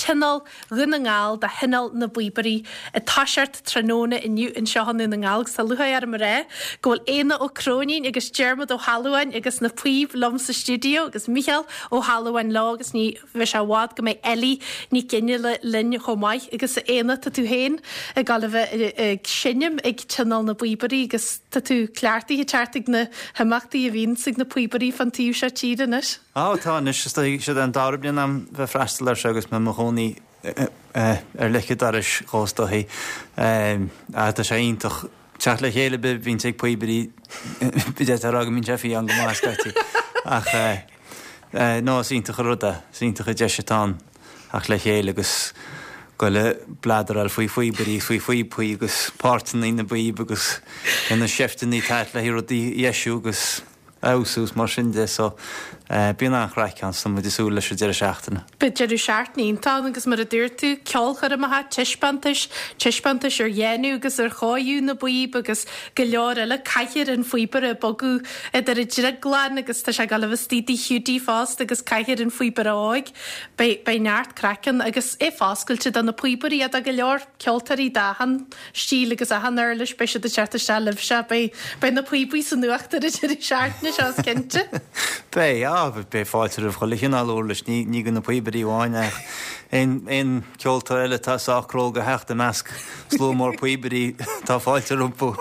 Tionól Dhún na nGall do Thionól na bPíobairí ag toiseacht tráthnóna inniu anseo i nDún na nGall agus tá lúcháir orm a rá go bhfuil Éanna Ó Cróinín agus Diarmuid Ó hAlmhain agus na píob liom sa stiúideo agus Mícheál Ó hAlmhain leo agus ní bheidh sé i bhfad go mbeidh Ellie Nic Fhionnghaile linn chomh maith agus a Éanna tá tú féin ag dul a bheith ag seinm ag Tionól na bPíobairí agus tá tú cleachtaithe teacht ag na himeachtaí a bhíonns ag na píobairí fán taobh seo tíre anois. Á, tá anois. Is dóigh, siod é an dara bliain a'm bheith freastal air seo agus mé i mo chónaí ar leic an dorais dhó is dóichí. Ach tá sé iontach teacht le chéile a bhíonns ag píobairí, d'fhéadfá a rá go mbíonn sé fiáin go maith scaití. Ach no, is iontach an rud é, is iontach an deis atá ann theacht le chéile agus goil ag bladaráil faoi phíobairí is faoi phíopaí agus páirteanna na bpíob agus na seifteanna atá le rudaí a dheisiú agus fheabhsú is mar sin de so bíonn an-chraic ann so muid ag súil leis an deireadh seachtaine. Beidh deireadh seachtaine iontach ann agus mar a dúirt tú, ceolchoirmeacha, taispeántais, taispeántais ar dhéanamh agus ar chóiriú na bpíob agus go leor eile, Cathaoir an Phíobaire ag bogadh idir an drioglann agus tá sé ag dul a bheith istigh i dTigh Hiúdaí fosta agus Cathaoir an Phíobaire Óig. Beidh, beidh neart craic ann agus é foscailte do na píobairí ach do go leor ceoltóirí d'achan stíl agus achan uirlis, beidh siad ag teacht isteach libhse, beidh, beidh na píobaí san uachtar an deireadh seachtaine seo, is cinnte. Beidh, á, beidh fáilte roimh chuile chineál uirlis, ní, ní do na píobairí amháin ach aon, aon ceoltóir eile atá sách cróga a theacht i measc slua mór píobairí, tá fáilte rompu.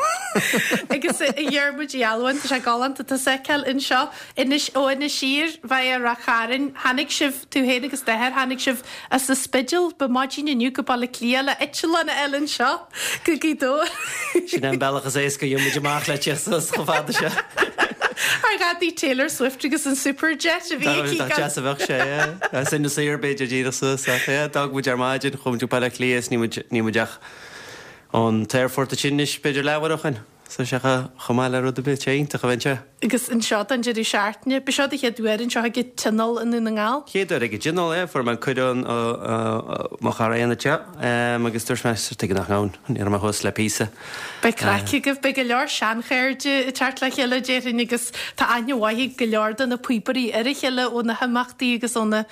Agus a Dhiarmuid Uí Almhain, tá sé galánta tusa a fheiceáil anseo. Anois, ó Inis Oírr, via Ráth Chairn, tháinig sibh, tú féin agus d'athair, tháinig sibh as an Spidéal, ba maidin inniu go Baile Átha Cliath le eitleán a fháil anseo go Gaoth Dobhair. Sin é an bealach is éasca a gheobhaidh muid amach le teacht suas chomh fada seo. Ar ghadaí Taylor Swift agus an Superjet a bhí aici. Dá deas a bheadh sé, yeah. As Inis Oírr b'fhéidir díreach suas ach yeah, d'fhág muid ar maidin, chuaigh muid go Baile Átha Cliath is níl muid, níl muid ach ón t-aerfort ansin anois b'fhéidir leathuair ó shin. So sé chomh maith le rud ar bith, sé iontach a bheith anseo. Agus anseo don deireadh seachtaine, ba seo do chéad uair anseo ag an Tionól i nDún na nGall? Chéad uair ag an Tionól, é. Fuair mé an cuireadh ó mo chara Éanna anseo agus dúirt mé, tuige nach ngabhfainn, ní raibh mé thuas le píosa. Beidh craic agaibh, beidh go leor seanchairde ag teacht le chéile déarfainn agus tá aithne mhaith ag go leor de na píobairí ar a chéile ó na himeachtaí agus ó na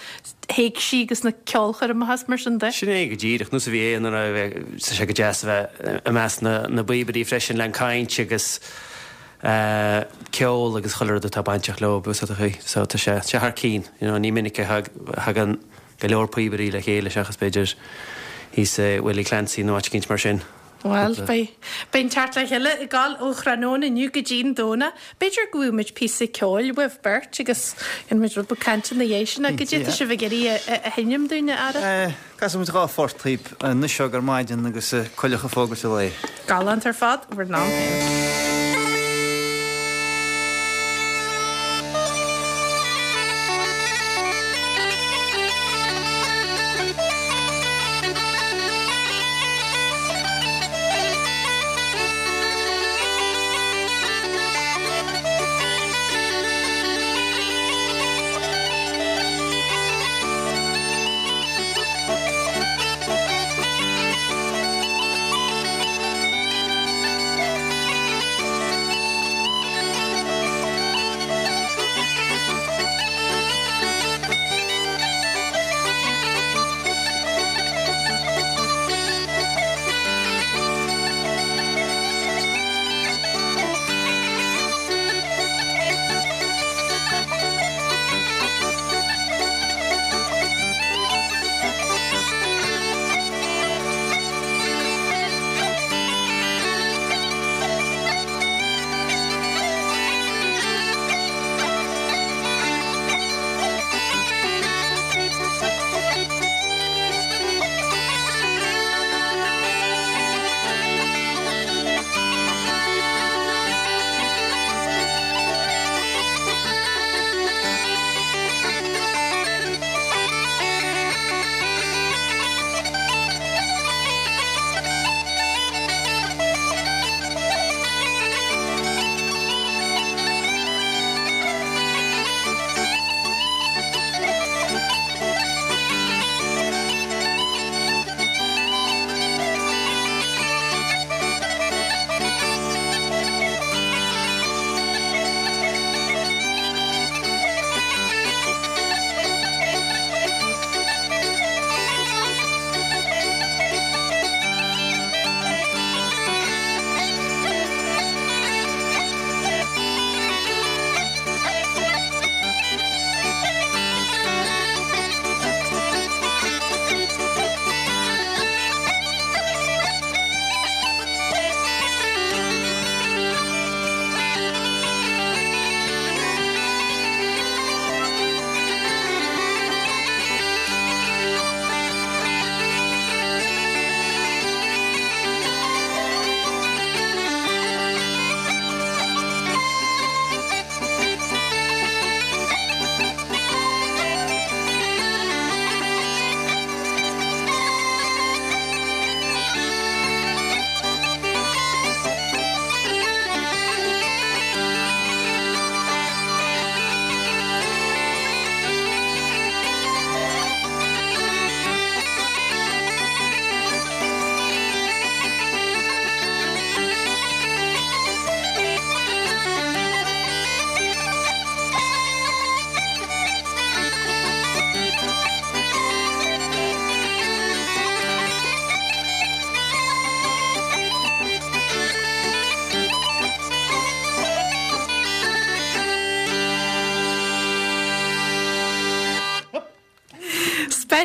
héigsí agus na ceolchoirmeacha is mar sin de. Sin é go díreach, nós a bhí Éanna a rá, tá sé go deas a bheith i measc na bpíobairí freisin le an caint agus ceol agus chuile rud atá bainteach leo, bhfuil fhios agat. So tá sé, sé thar cinn, you know, ní minic a thagann go leor píobairí le chéile seachas b'fhéidir thíos i Willie Clancy nó áit eicínt mar sin. Bhuel, beidh, beidh an teacht le chéile ag gabháil ó thráthnóna inniu go dtí'n Domhnach. B'fhéidir go bhfaighidh muid píosa ceoil uaibh beirt agus dhéanfaidh muid rud beag cainte ina dhiaidh sin. Goidé tá sibh ag iarraidh a sheinm dúinn, a fheara? Casfaidh muid dha phort dhaoib, Anois Óg ar Maidin agus Coileach ag Fógairt an Lae. Galánta ar fad, bhur n-am féin.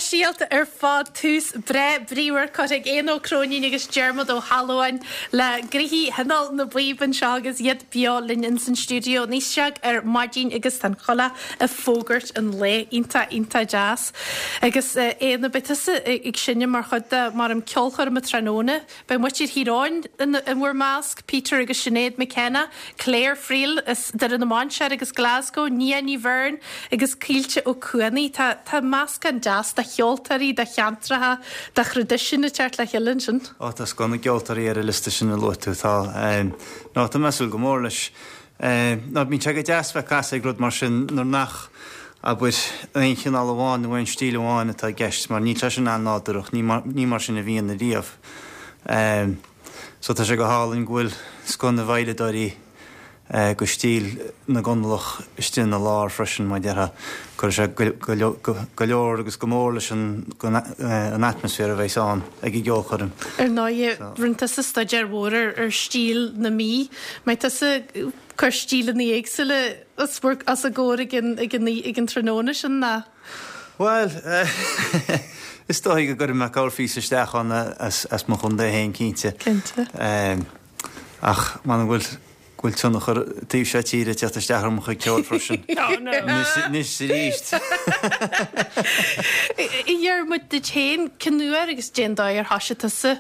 Speisialta ar fad, tús breá bríomhar curtha ag Éanna Ó Cróinín agus Diarmuid Ó hAlmhain le gnoithí Thionól na bPíob anseo agus iad beo linn ins an stiúideo níos seag ar maidin agus tá an choileach ag fógairt an lae. Iontach, iontach deas. Agus Éanna, beidh tusa ag seinm mar chuid de mar an ceolchoirm tráthnóna. Beidh muintir Thír Eoghain in bhur measc, Peter agus Sinéad McKenna, Claire Friel as Doire na Mainséar agus Glasgow, Nia Ní Bheirn agus Caoilte Ó Cuanaigh. Tá tá meascán deas de cheoltóirí, de cheantracha, de thraidisiún ag teacht le chéile ansin. Ó tá scoth na gceoltóirí ar an liosta sin a luaigh tú. Tá. Nó tá mé ag súil go mór leis. Nó bíonn sé go deas bheith ag casadh ag rud mar sin nuair nach, abair, aon chineál amháin nó aon stíl amháin atá i gceist, mar níl sé sin an-nádúrach, ní mar, ní mar sin a bhíonn ariamh. So tá sé go hálainn go bhfuil scoth na bhveidhleadóirí go stíl na gConallach istigh ina lár freisin, mar a déarfá. Cuirfidh sé go leor agus go mór leis an an atmaisféar a bheas ann ag an gceolchoirm. Ar ndóighe, rinne tusa staidéar mhór ar stíl na Mí. Mbeidh tusa ag cur stíleanna éagsúla os a gcomhair ag an ag an ag an tráthnóna sin ná? Bhuel, is dóigh go gcuirfidh mé corrphíosa isteach ann as mo chontae féin, cinnte. Cinnte. Ach m'anam go bhfuil go bhfuil tionchar taobh seo tíre ag teacht isteach ar mo chuid ceoil freisin. Oh no! Anois is arís. A Dhiarmuid, duit féin, cén uair agus cén dóigh ar thoisigh tusa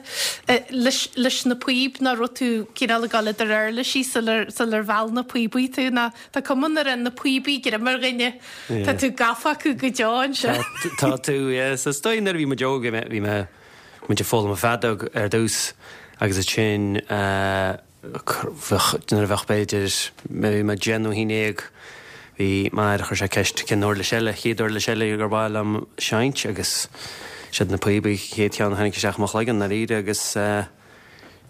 leis leis na píob nó raibh tú cineál ag dul idir uirlisí sular sular mheall na píobaí tú nó tá cuma nuair a na píobaí greim ar dhuine tá tú gafa acu go deo ansin. Tá tú, yeah. So is dóigh nuair a bhí muid óg bhí mé bhí mé muid ag foghlaim an feadóg ar dtús agus ansin eh Bheadh, nuair a bheadh b'fhéidir, bhí mé 10 nó 11, bhí m'athair, chuir sé ceist cén uirlis eile, chéad uirlis eile gur mhaith liom seinnt agus siad na píobaí chéad cheann a tháinig isteach i mo chloigeann ndáiríre agus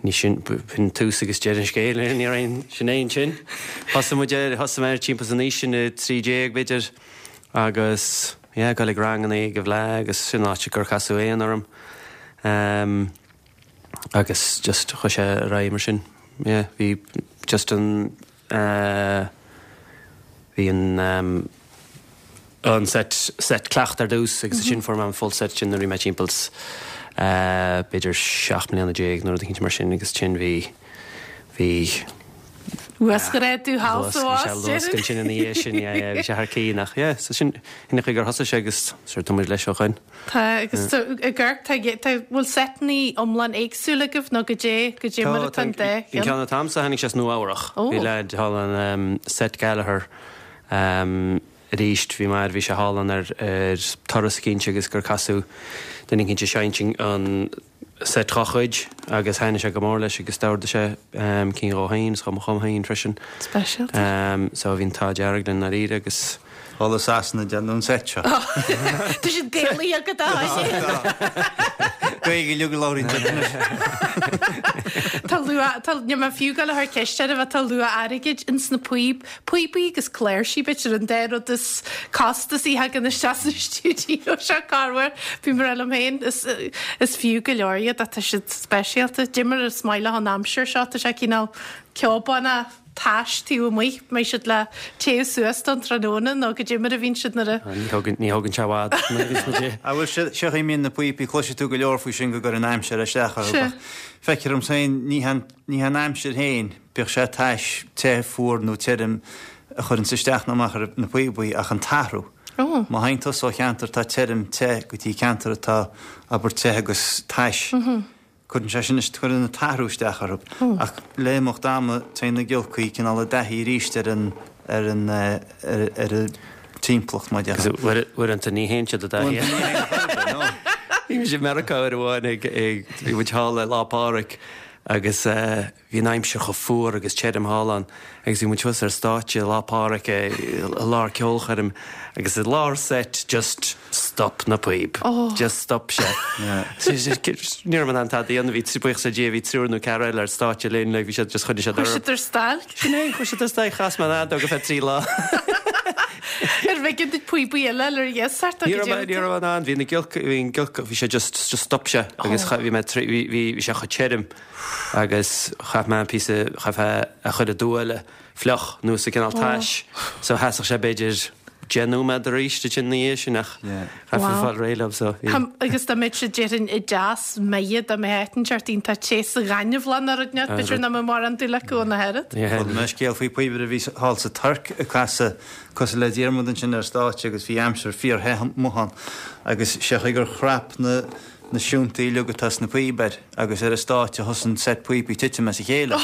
ní sin, b'shin tús agus deireadh an scéil, ní raibh aon, sin é ansin. Thosaigh muid air, thosaigh mé air timpeall san aois sin, 13 b'fhéidir agus yeah, ag dul ag ranganna ag an bhFleadh agus sin an áit gur casadh Éanna orm. Agus just chuaigh sé ar aghaidh mar sin. Yeah, bhí just an eh bhí an ehm an set set cleachta ar dtús agus ansin fuair mé an full set sin nuair a bhí mé timpeall eh b'fhéidir 17 mbliana nó rud eicínt mar sin agus ansin bhí bhí Uasghrádú thall sa bhás, Bhí sé luasc ansin ina dhiaidh sin, yeah, yeah, bhí sé thar cionn ach yeah, so sin sin an chaoi gur thosaigh sé agus sure tá muid leis ó shoin. Tá, agus tá, ag amharc, tá, tá, bhfuil seiteanna iomlán éagsúil agaibh nó goidé, goidé mar atá an dá An cheann? ceann atá a'msa tháinig sé as Nua Eabhrach. Ó. Bhí leaid thall ann um, Seth Gallagher um, arís bhí m'athair, bhí sé thall ann ar, ar turas eicínt agus gur casadh duine eicínt ag seinnt an seit dhá chuid agus thaitnigh sé go mór leis agus d'ordaigh sé cinn dhó féin is dhom féin freisin. Speisialta. So bhí an t-ádh dearg linn ndáiríre agus. Thall i Sasana déanadh an seit seo. Tá siad Gaelaithe agat a Tháidí. Gaeilge uilig a labhraíonn siad anois. Tá luach, tá, níl mé fiú ag gabháil a chur ceist oraibh ach tá luach airgid ins na píob, píobaí agus cláirsí b'fhéidir an dá rud is costasaí a thagann isteach sa stiúideo seo corruair. Bím ag rá liom féin, is, is fiú go leor iad ach tá siad speisialta. Dé mar is maith leo an aimsir seo, tá sé cineál ceobánach tais taobh amuigh, mbeidh siad le téamh suas don tráthnóna nó goidé mar a bhíonn siad nuair a. Ní thógann, ní thógann sé i bhfad nuair a bhíonns muid i. Ah bhuel, seo, seo a mbíonn na píopaí, cloisfidh tú go leor faoi sin go gcuireann an aimsir isteach orthu ach feictear dom féin, ní han, ní han aimsir féin, Bíodh sé tais, te, fuar nó tirim, a chuireanns isteach nó amach ar na píobaí ach an t-athrú. Má théann tusa ó cheantar atá tirim, te go dtí ceantar atá, abair, te agus tais, cuireann sé sin, cuireann an t-athrú isteach orthu. Ach le himeacht ama, téann na giolcaí cineál i dtaithí arís ar an, ar an, ar an timpeallacht, mar a déarfá. Agus uaireanta ní théann siad i dtaithí. Uaireanta ní théann siad i dtaithí, no. Bhí mise i Meiriceá uair amháin ag, ag, bhí muid thall le Lá Pádraig agus eh, Bhí an aimsir chomh fuar agus tirim thall ann agus bhí muid thuas ar stáitse Lá Pádraig i lár ceolchoirm agus i lár seit just stop na píob. Just stop sé. Ní raibh mé in ann tada a dhéanamh, bhí, buíochas le Dia, bhí triúr nó ceathrar eile ar stáitse linn, like bhí siad just choinnigh siad orthu. Chuir siad ar stailc. Sin é, chuir siad ar stailc, chas mé an fheadóg ar feadh trí lá. Ar bh'éigean duit píobaí eile a fháil ar iasacht Ní raibh mé, ní raibh mé in ann, bhí na giolcaí, bhí an giolcach, bhí sé just, just stop sé agus bhí mé trí, bhí, bhí sé chomh tirim. agus chaith mé an píosa, chaithfeá a chur i dtuáille fliuch nó sa cineál tais so sheasfadh sé b'fhéidir. 10 nóiméad arís ansin ina dhiaidh sin ach chaithfeá fáil réidh leo so bhí. Agus dá mbeadh siad déarfainn i dteas maith dá mbeadh áit inteacht iontach te sa ghaineamhlach nó rud inteacht b'fhéidir nach mbeadh mórán dúil acu ann ach oiread. Chuala mé scéal faoi píobaire a bhí thall sa Tuirc ag casadh cosúil le Diarmuid ansin ar stáitse agus bhí aimsir fíor-the amuigh ann agus sé chaoi gur chrap na na siúntaí uilig atá sna píob air agus ar an stáitse thosaigh an set píopaí titim as a chéile.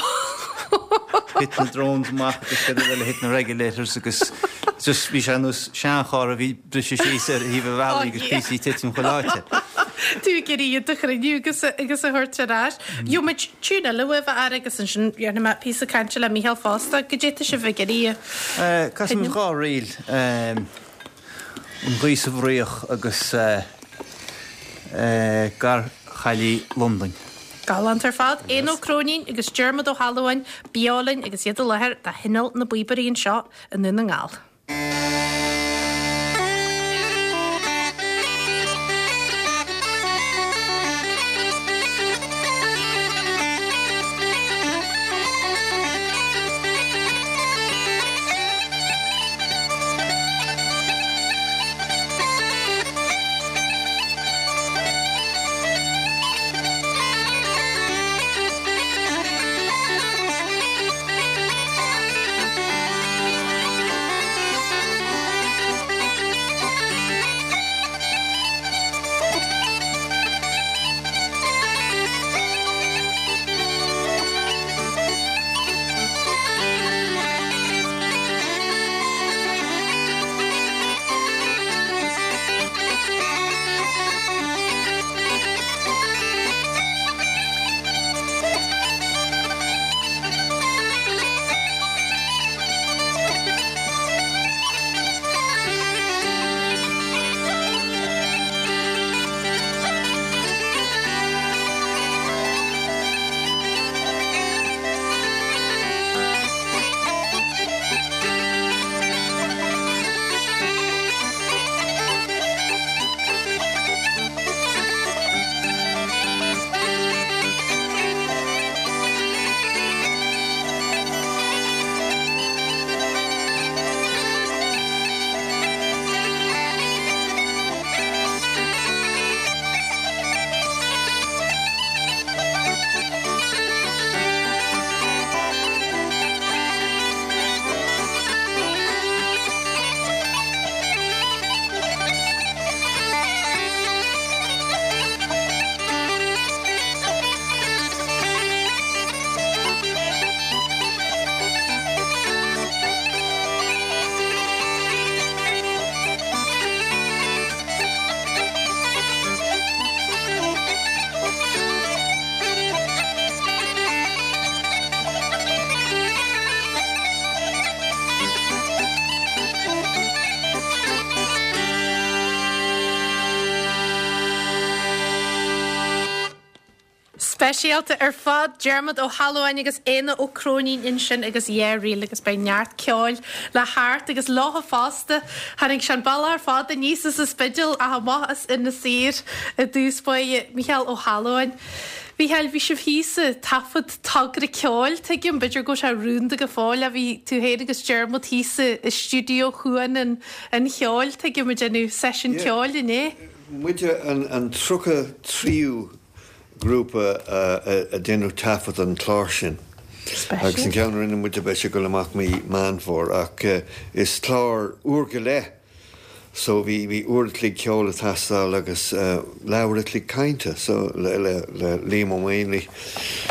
Thit na drones amach agus cad eile, thit na regulators agus just bhí sé ar nós seancharr a bhí briste síos ar thaobh an bhealaigh agus píosaí ag titim chuile áite. Tú ag iarraidh iad a chruinniú agus agus a thabhairt ar ais. Gheobhaidh muid tiún eile uaibh a fhear agus ansin dhéanfaidh mé píosa cainte le Mícheál fosta. Goidé tá sibh ag iarraidh a Casfaidh muid dhá ríl. An Ghaoth sa bhFraoch agus Garchaillí Londain. Galánta ar fad. Éanna Ó Cróinín agus Diarmuid Ó hAlmhain beo linn agus iad i láthair do Thionól na bPíobairí anseo i nDún na nGall. Speisialta ar fad, Diarmuid Ó hAlmhain agus Éanna Ó Cróinín ansin agus Yeah Reel agus beidh neart ceoil le theacht agus leotha fosta. Tháinig sé an bealach ar fad aníos as an Spidéal ach amach as Inis Oírr i dtús báire, Mícheál Ó hAlmhain. Mhícheáil, bhí sibh thíos ag taifead togra ceoil, tuigim, b'fhéidir go bhfuil sé rúnda go fóill ach bhí tú féin agus Diarmuid thíos i stiúideo Chuan an Cheoil, tuigim, ag déanamh seisiún ceoil inné. Muide an 33ú grúpa a déanadh taifead an clár sin agus an ceann a rinne muide beidh sé ag dul amach mí Meán Fómhair ach is clár uair go leith so bhí bhí uair a chloig ceoil ag teastáil agus leathuair a chloig cainte so le le le Liam Ó Maonlaí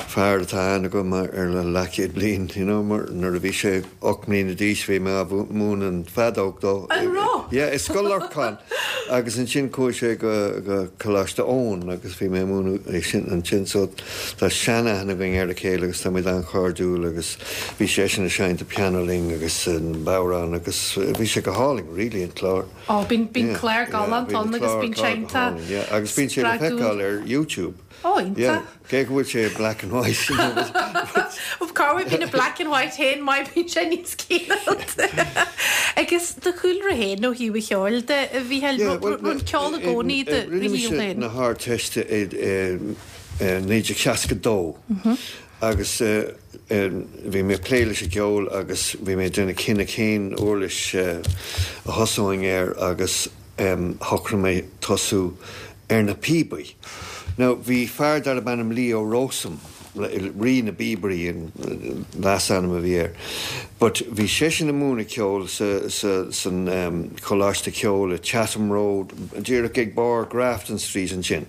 fear atá aithne agam ar le leathchéad bliain you know mar nuair a bhí sé 8 mbliana d'aois bhí mé á mhúineadh an feadóg dó. An raibh? Yeah i Scoil Lorcáin agus ansin chuaigh sé go go Coláiste Eoin agus bhí mé ag múineadh é sin ansin so tá seanaithne againn ar a chéile agus táimid an-chairdiúil agus Bhí seisean ag seinnt an pianó linn agus an bodhrán agus bhí sé go hálainn really an clár. Ó bíonn bíonn clár galánta ann agus bíonn sé iontach Yeah agus bíonn sé le feiceáil ar YouTube. Ó iontach. Yeah cé go bhfuil sé black and white you know but. Cá bhfuil bíonn an black and white féin maith bíonn sé níos cineálta. Agus do chúlra féin ó thaobh an cheoil de a Mhícheáil, raibh an ceol i gcónaí i do shaol féin? Rinne mise na hArdteiste i 1962. Agus bhí mé ag plé leis an gceol agus bhí mé ag déanamh cinneadh cén uirlis a thosóinn air agus shocraigh mé tosú ar na píobaí. Now bhí fear darb ainm Leo Rowsome, Rí na bPíobairí an leasainm a bhí air, but bhí seisean ag múineadh ceoil sa, sa, san Choláiste Ceoil i Chatham Road, díreach ag barr Grafton Street ansin.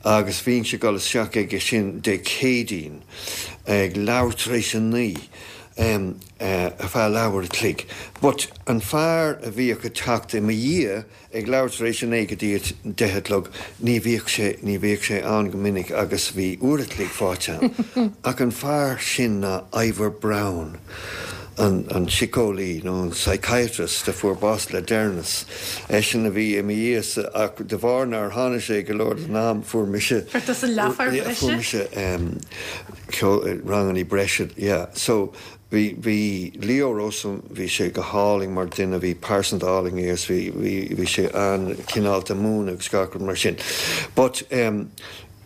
Agus bhínnse ag dul isteach aige sin Dé Céadaoin ag leathuair tar éis a naoi ar feadh leathuair a chloig. But an fear a bhíodh ag teacht i mo dhiaidh ag leathuair tar éis a naoi go dtí a deich a chlog, ní bhíodh sé, ní bhíodh sé ann go minic agus bhí uair a chloig faighte agam. Ach an fear sin ná Ivor Browne. an síceolaí nó an psychiatrist a fuair bás le deireanas. Eisean a bhí i mo dhiaidh-sa ach de bharr nár tháinig sé go leor den am fuair mise Fuair tusa leathuair bhreise? Fuair mise ceol, rangannaí breise, yeah. So bhí, bhí Leo Rowsome, bhí sé go hálainn mar duine, bhí pearsanta álainn é agus bhí, bhí, bhí sé an-chineálta múineadh agus gach rud mar sin. But em.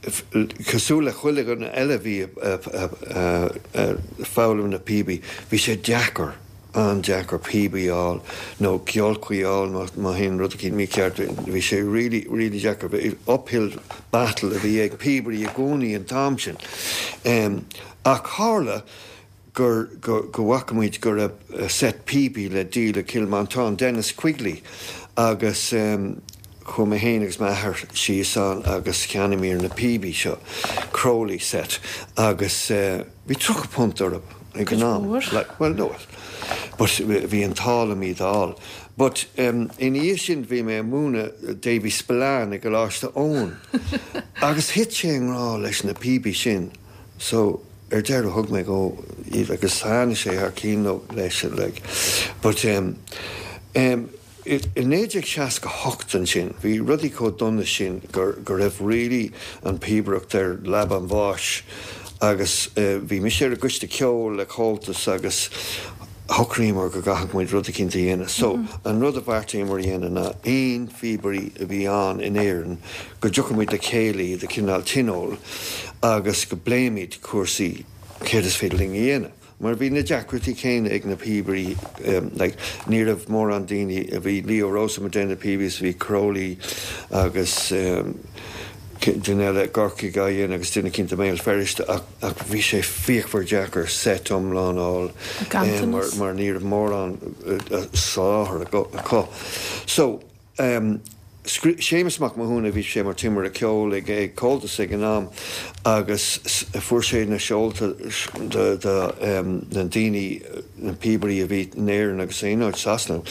Cosúil le chuile dhuine eile a bhí ag foghlaim na píobaí, bhí sé deacair, an-deacair píobaí a fháil nó giolcaí a fháil má théann rud eicínt mícheart. Bhí sé really, really deacair. Uphill battle a bhí ag píobairí i gcónaí an t-am sin. Ach tharla gur, go, go bhfaca muid go raibh set píobaí le díol i Cill Mhantáin, Denis Quigley, agus chuaigh mé féin agus m'athair síos ann agus cheannaíomar na píobaí seo, Crowley set, agus bhí £30 orthu ag an am. Like, well, no, but bhí an t-ádh liom iad a fháil. But ina dhiaidh sin bhí mé ag múineadh Davy Spillane i gColáiste Eoin agus thit sé i ngrá leis na píobaí sin. So, ar deireadh thug mé dhó iad agus thaitnigh sé thar cionn leis like. But em, em, i 1968 ansin, bhí rudaí chomh dona sin gur, go raibh really an píobaireacht ar leaba an bháis agus eh bhí mise ar an gcoiste ceoil le Comhaltas agus shocraíomar go gcaithfeadh muid rud eicínt a dhéanamh. So, an rud a bheartaíomar a dhéanamh ná aon phíobairí a bhí ann in Éirinn go dtiocfadh muid le chéile iad a chineál tionól agus go bpléimid cúrsaí céard is féidir linn a dhéanamh. Mar bhí na deacrachtaí céanna ag na píobairí, like, ní raibh mórán daoine, bhí Leo Rowsome ag déanamh na píobaí is bhí Crowley agus duine eile i gCorcaigh á dhéanamh agus duine eicínt i mBéal Feirste ach, Ach bhí sé fíochmhar deacair seit iomlán a fháil mar mar ní raibh mórán soláthar acu. So, Séamus Mac Mathúna, bhí sé mar timire ceoil ag ag Comhaltas ag an am agus fuair sé na seolta de de na daoine, na píobairí a bhí in Éirinn agus in aon áit Sasana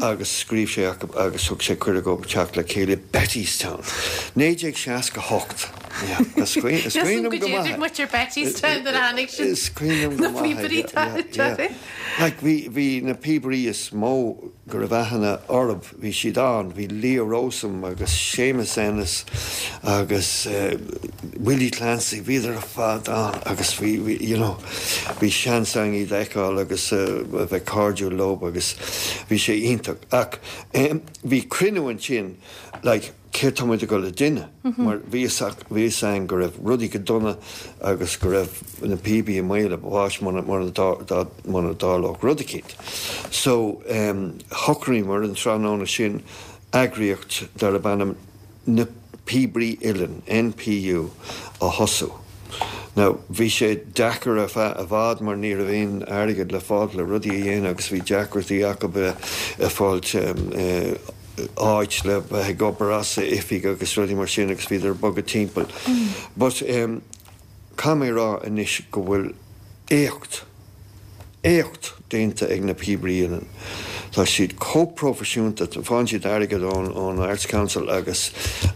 agus scríobh sé acu agus thug sé cuireadh dóibh teacht le chéile i Bettystown. 1968. Yeah, is cuimhin is cuimhin liom go maith é. Muid ar Bettystown nuair a tháinig sin. Is cuimhin liom go maith é. Yeah, yeah, yeah. Like bhí bhí na píobairí is mó go raibh aithne orthu, bhí siad ann, bhí Leo Rowsome agus Séamus Ennis agus Willie Clancy, bhíodar ar fad ann agus bhí, bhí, you know, bhí seans againn iad a fheiceáil agus a bheith cairdiúil leo agus bhí sé iontach. Ach bhí cruinniú ansin, like, céard tá muid ag dul a dhéanamh? Mar bhí fhios bhí fhios againn go raibh rudaí go dona agus go raibh na píobaí i mbaol a bháis muna muna muna dtarlódh rud eicínt. So shocraíomar an tráthnóna sin eagraíocht darb ainm Na Píobairí Uilleann, NPU, a thosú. Now bhí sé deacair ar feadh i bhfad mar ní raibh aon airgead le fáilt le rudaí a dhéanamh agus bhí deacrachtaí acu ag fáilt áit le bheith ag obair as, oifig agus rudaí mar sin agus bhíodar ag bogadh timpeall. But caithfidh mé a rá anois go bhfuil éacht, éacht déanta ag na Píobairí Uilleann. Tá siad chomh proifisiúnta, faigheann siad airgead ón ón Arts Council agus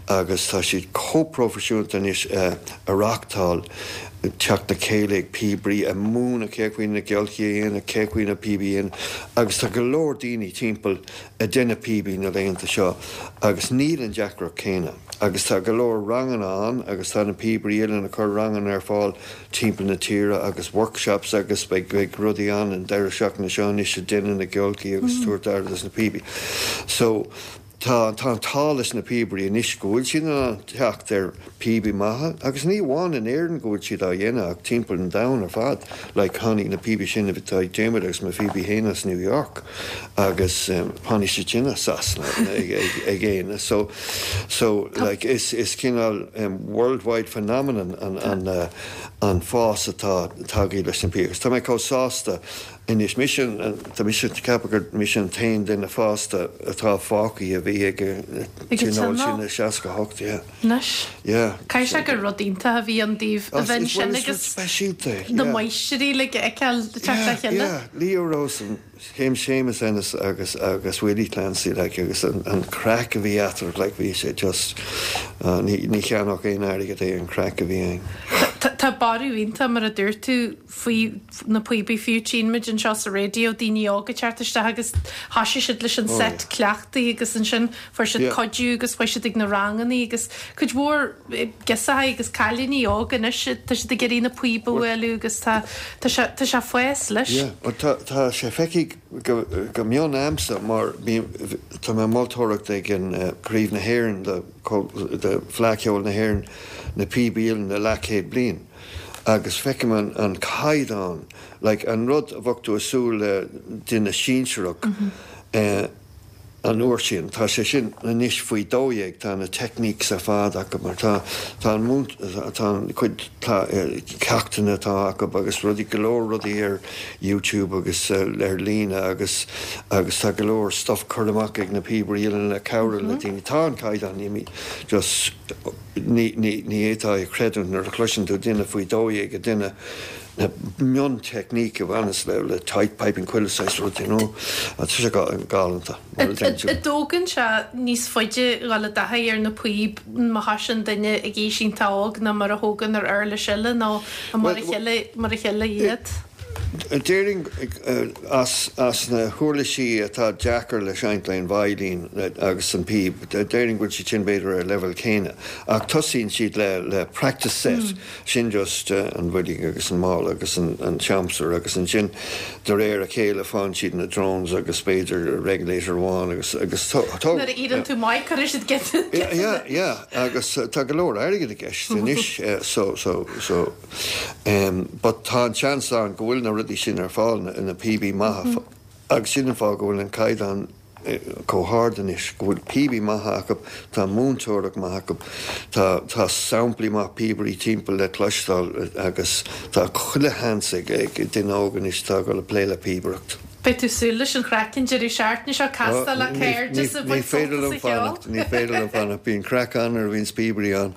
agus tá siad chomh proifisiúnta anois ag reáchtáil teacht le chéile ag píobairí, ag múineadh cé chaoi na giolcaí a dhéanamh, cé chaoi na píobaí a dhéanamh agus tá go leor daoine timpeall ag déanamh píobaí na laethanta seo agus níl an deacracht céanna agus tá go leor ranganna ann agus tá na Píobairí Uilleann ag cur ranganna ar fáil timpeall na tíre agus workshops agus beidh beidh rudaí ann an deireadh seachtaine seo anois ag déanamh na giolcaí agus tabhairt aire dos na píobaí. So. Tá tá an t-ádh leis na píobairí anois go bhfuil siad in ann teacht ar píobaí maithe agus ní amháin in Éirinn go bhfuil siad á dhéanamh ach timpeall an domhain ar fad. Like tháinig na píobaí sin atá ag Diarmuid agus mo phíobaí féin as New York agus tháinig siad sin as Sasana ag ag ag Éanna so so like is is cineál worldwide phenomenon an an an fás atá tagtha leis na píobaí agus tá mé chomh sásta Anois, mise an, tá mise ag ceapadh gur mise an t-aon duine fásta atá fágtha a bhí ag an tionól sin i 68, yeah. Anois. Yeah. Caithfidh sé gur rud iontach a bhí ann daoibh a bheith ansin agus speisialta, yeah. na máistrí uilig a fheiceáil ag teacht le chéile. Yeah, yeah. Leo Rowsome, Séamus Ennis agus, agus Willie Clancy, like, agus an, an craic a bhí eatarthu, like, bhí sé just, ní, ní cheannódh aon airgead é an craic a bhí ann. Tá, tá borradh iontach, mar a dúirt tú, faoi na píobaí fiú. Tchíonn muid anseo sa raidió daoine óga ag teacht isteach agus thoisigh siad leis an set cleachtaidh agus ansin fuair siad cuidiú agus chuaigh siad ag na rangannaí agus cuid mhór girseachaí agus cailíní óga anois tá siad ag iarraidh na píob a bhualadh agus tá tá sé tá sé ag fás leis. Yeah, bhuel tá tá sé feicthe go go mion a'msa mar bím tá mé ag moltóireacht ag an Craobh na hÉireann de de Fleadh Cheoil na hÉireann na píobaí uilleann le leathchéad bliain. agus feicim an an caighdeán, like an rud a bheadh tú ag súil le duine sinsearach eh an uair sin, tá sé sin anois faoi 12, tá na techniques ar fad acu mar tá tá an múint tá an cuid ceachtanna atá acu agus rudaí go leor rudaí ar YouTube agus ar líne agus agus tá go leor stuff curtha amach ag na píobairí uilleann le cabhrú le daoine, tá an caighdeán imithe just. Ní fhéadfá a chreidiúint nuair a chloiseann tú duine faoi 12 ag déanamh na mion-teicníc a bhaineas le tight piping chuile saghas rud, you know. Tá sé galánta, mar a deireann tú. An dtógann sé níos faide dhul i dtaithí ar na píob má thosaíonn duine ag aois iontach óg ná mar a thógann ar uirlis eile nó mar a chéile mar a chéile iad? Déarfainn as na huirlisí atá deacair le seinnt le an veidhlín agus an píb, déarfainn go bhfuil siad sin b'fhéidir ar an leibhéal céanna. Ach tosaíonn siad le practice set, sin just an bhoilg agus an mála agus an siamsúr agus ansin de réir a chéile faigheann siad na drones agus b'fhéidir regulator amháin agus agus tá. Nuair a éiríonn tú maith cuirfidh siad giota. Yeah, yeah agus tá go leor airgid i gceist anois so so so. But tá an seans ann go bhfuil na rudaí sin ar fáil, na píobaí maithe, agus sin an fáth go bhfuil an caighdeán chomh hard anois, go bhfuil píobaí maithe acu, tá múinteoireacht maith acu, tá tá samplaí maith píobairí timpeall le cloisteáil agus tá chuile sheans ag duine óg anois atá ag dul ag plé le píobaireacht. Beidh tú ag súil leis an chraic an deireadh seachtaine seo, castáil le cairde is ag Ní baint féidir sult liom as an cheol. fanacht, ní féidir liom fanacht, bíonn craic ann nuair a bhíonns píobairí ann.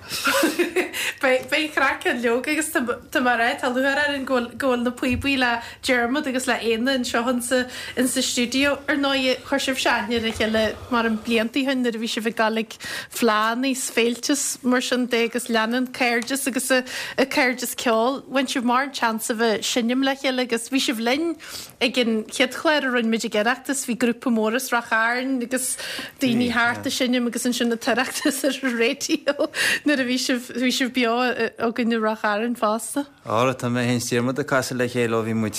Beidh beidh craic ann leoga agus tá tá mé ag rá, tá lúcháir orainn go bhfuil go bhfuil na píobaí le Diarmuid agus le Éanna anseo insa insa stiúideo. Ar ndóigh, chuir sibhse aithne ar a chéile mar an blianta ó shin nuair a bhí sibh ag dul ag fleánna is féilte is mar sin de agus leanann cairdeas agus a cairdeas ceoil. Bhain sibh mórán seans a bheith ag seinm le chéile agus bhí sibh linn Ag an chéad chlár a rinne muid ag Oireachtas bhí grúpa mór as Ráth Chairn agus daoine thart ag seinm agus ansin an tOireachtas ar an raidió nuair a bhí sibh, bhí sibh beo againn i Ráth Chairn fosta. Ara, tá mé féin is Diarmuid ag casadh le chéile ó bhí muid,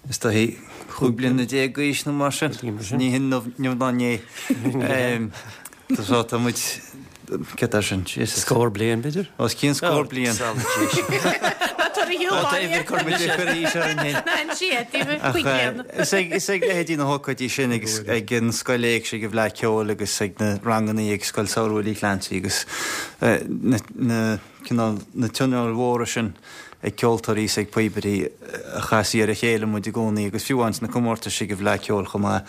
is dóichí, 15 bliana d'aois nó mar sin. Ní hinniu ná inné. So tá muid, céard é sin, Jesus. Scór bliain, b'fhéidir? Os cionn scór bliain. Ná tabhair a shiúl baile. Cuir muid ag cur aois orainn féin. Ná insigh é daoibh, 5 bliana. Is ag, is ag leithéidí na hócáidí sin agus ag an Scoil Éigse ag an bhFleadh Ceoil agus ag na rangannaí ag Scoil Samhraidh Willie Clancy agus na, na, cineál, na tionóil mhóra sin ag ceoltóirí is ag píobairí a chastaí ar a chéile muid i gcónaí agus fiú amháin sna comórtais ag an bhFleadh Ceoil chomh maith.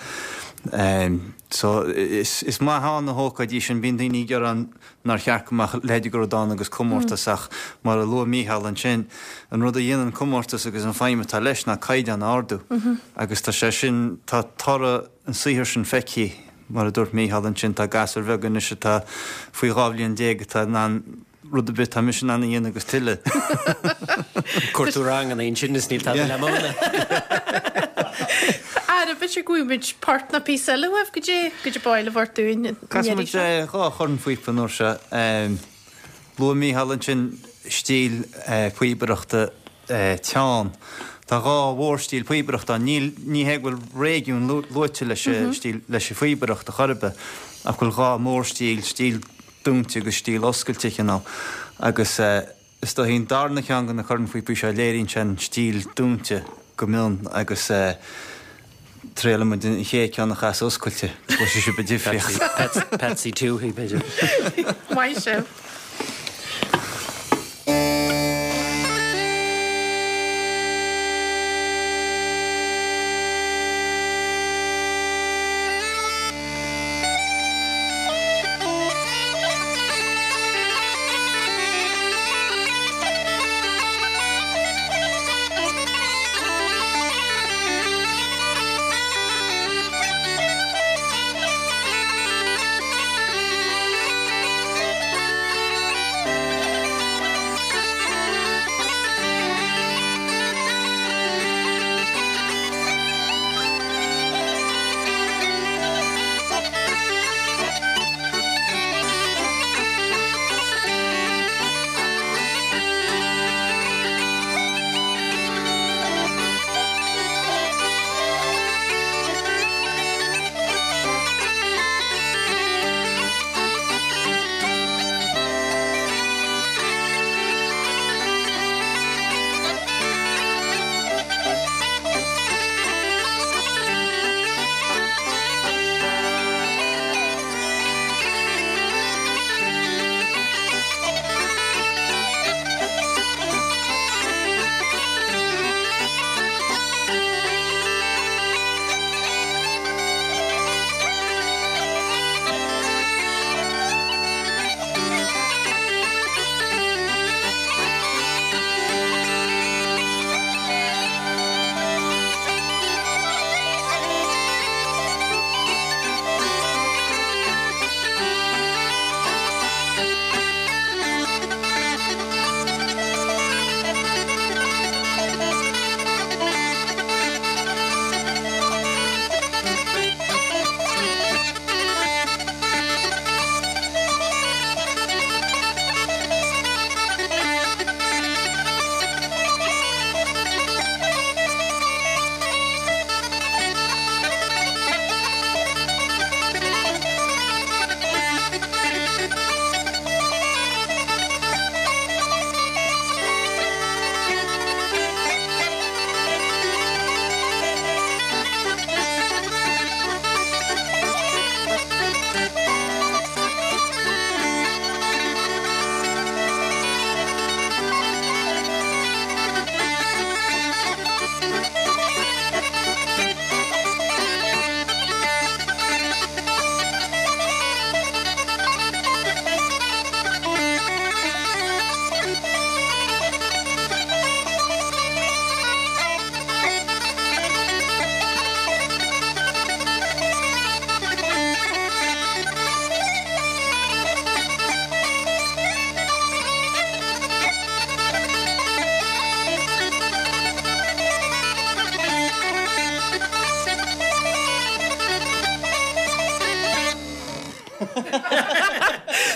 So, is maith ann na hócáidí sin. Bíonn daoine ag gearán nár cheart go mbeadh a leithéid de rud ann agus comórtas ach mar a luaigh Mícheál ansin, an rud a dhéanann comórtas agus an feidhm atá leis ná caighdeán a ardú agus tá sé sin, tá toradh an saothair sin feicthe, mar a dúirt Mícheál ansin, tá gasúir bheaga anois atá faoi 12 bhliain atá in ann rud ar bith atá mise in ann a dhéanamh agus tuilleadh. Cuir tú ranganna ansin is níl tada le múineadh. Ara, b'fhéidir go bhfaighidh muid port nó píosa eile uaibh, goidé, goidé ba áil libh a thabhairt dúinn an Casfaidh iarraidh muid seo. dhá chornphíopa an uair seo. Luaigh Mícheál ansin stíl píobaireachta teann. Tá 2 mhórstíl píobaireachta ann. Níl, ní hé go bhfuil réigiún luaite leis an stíl, leis an phíobaireacht a chor ar bith, ach go bhfuil 2 mhórstíl, stíl dúnta agus stíl oscailte cineál. Agus is dóichí an darna ceann de na cornphíopaí seo, léiríonn sé an stíl dúnta go mion agus triailfidh muid an chéad ceann a chasadh oscailte, go gcloisfidh sibh an difríocht. Patsy Touhey, b'fhéidir. Maith sibh.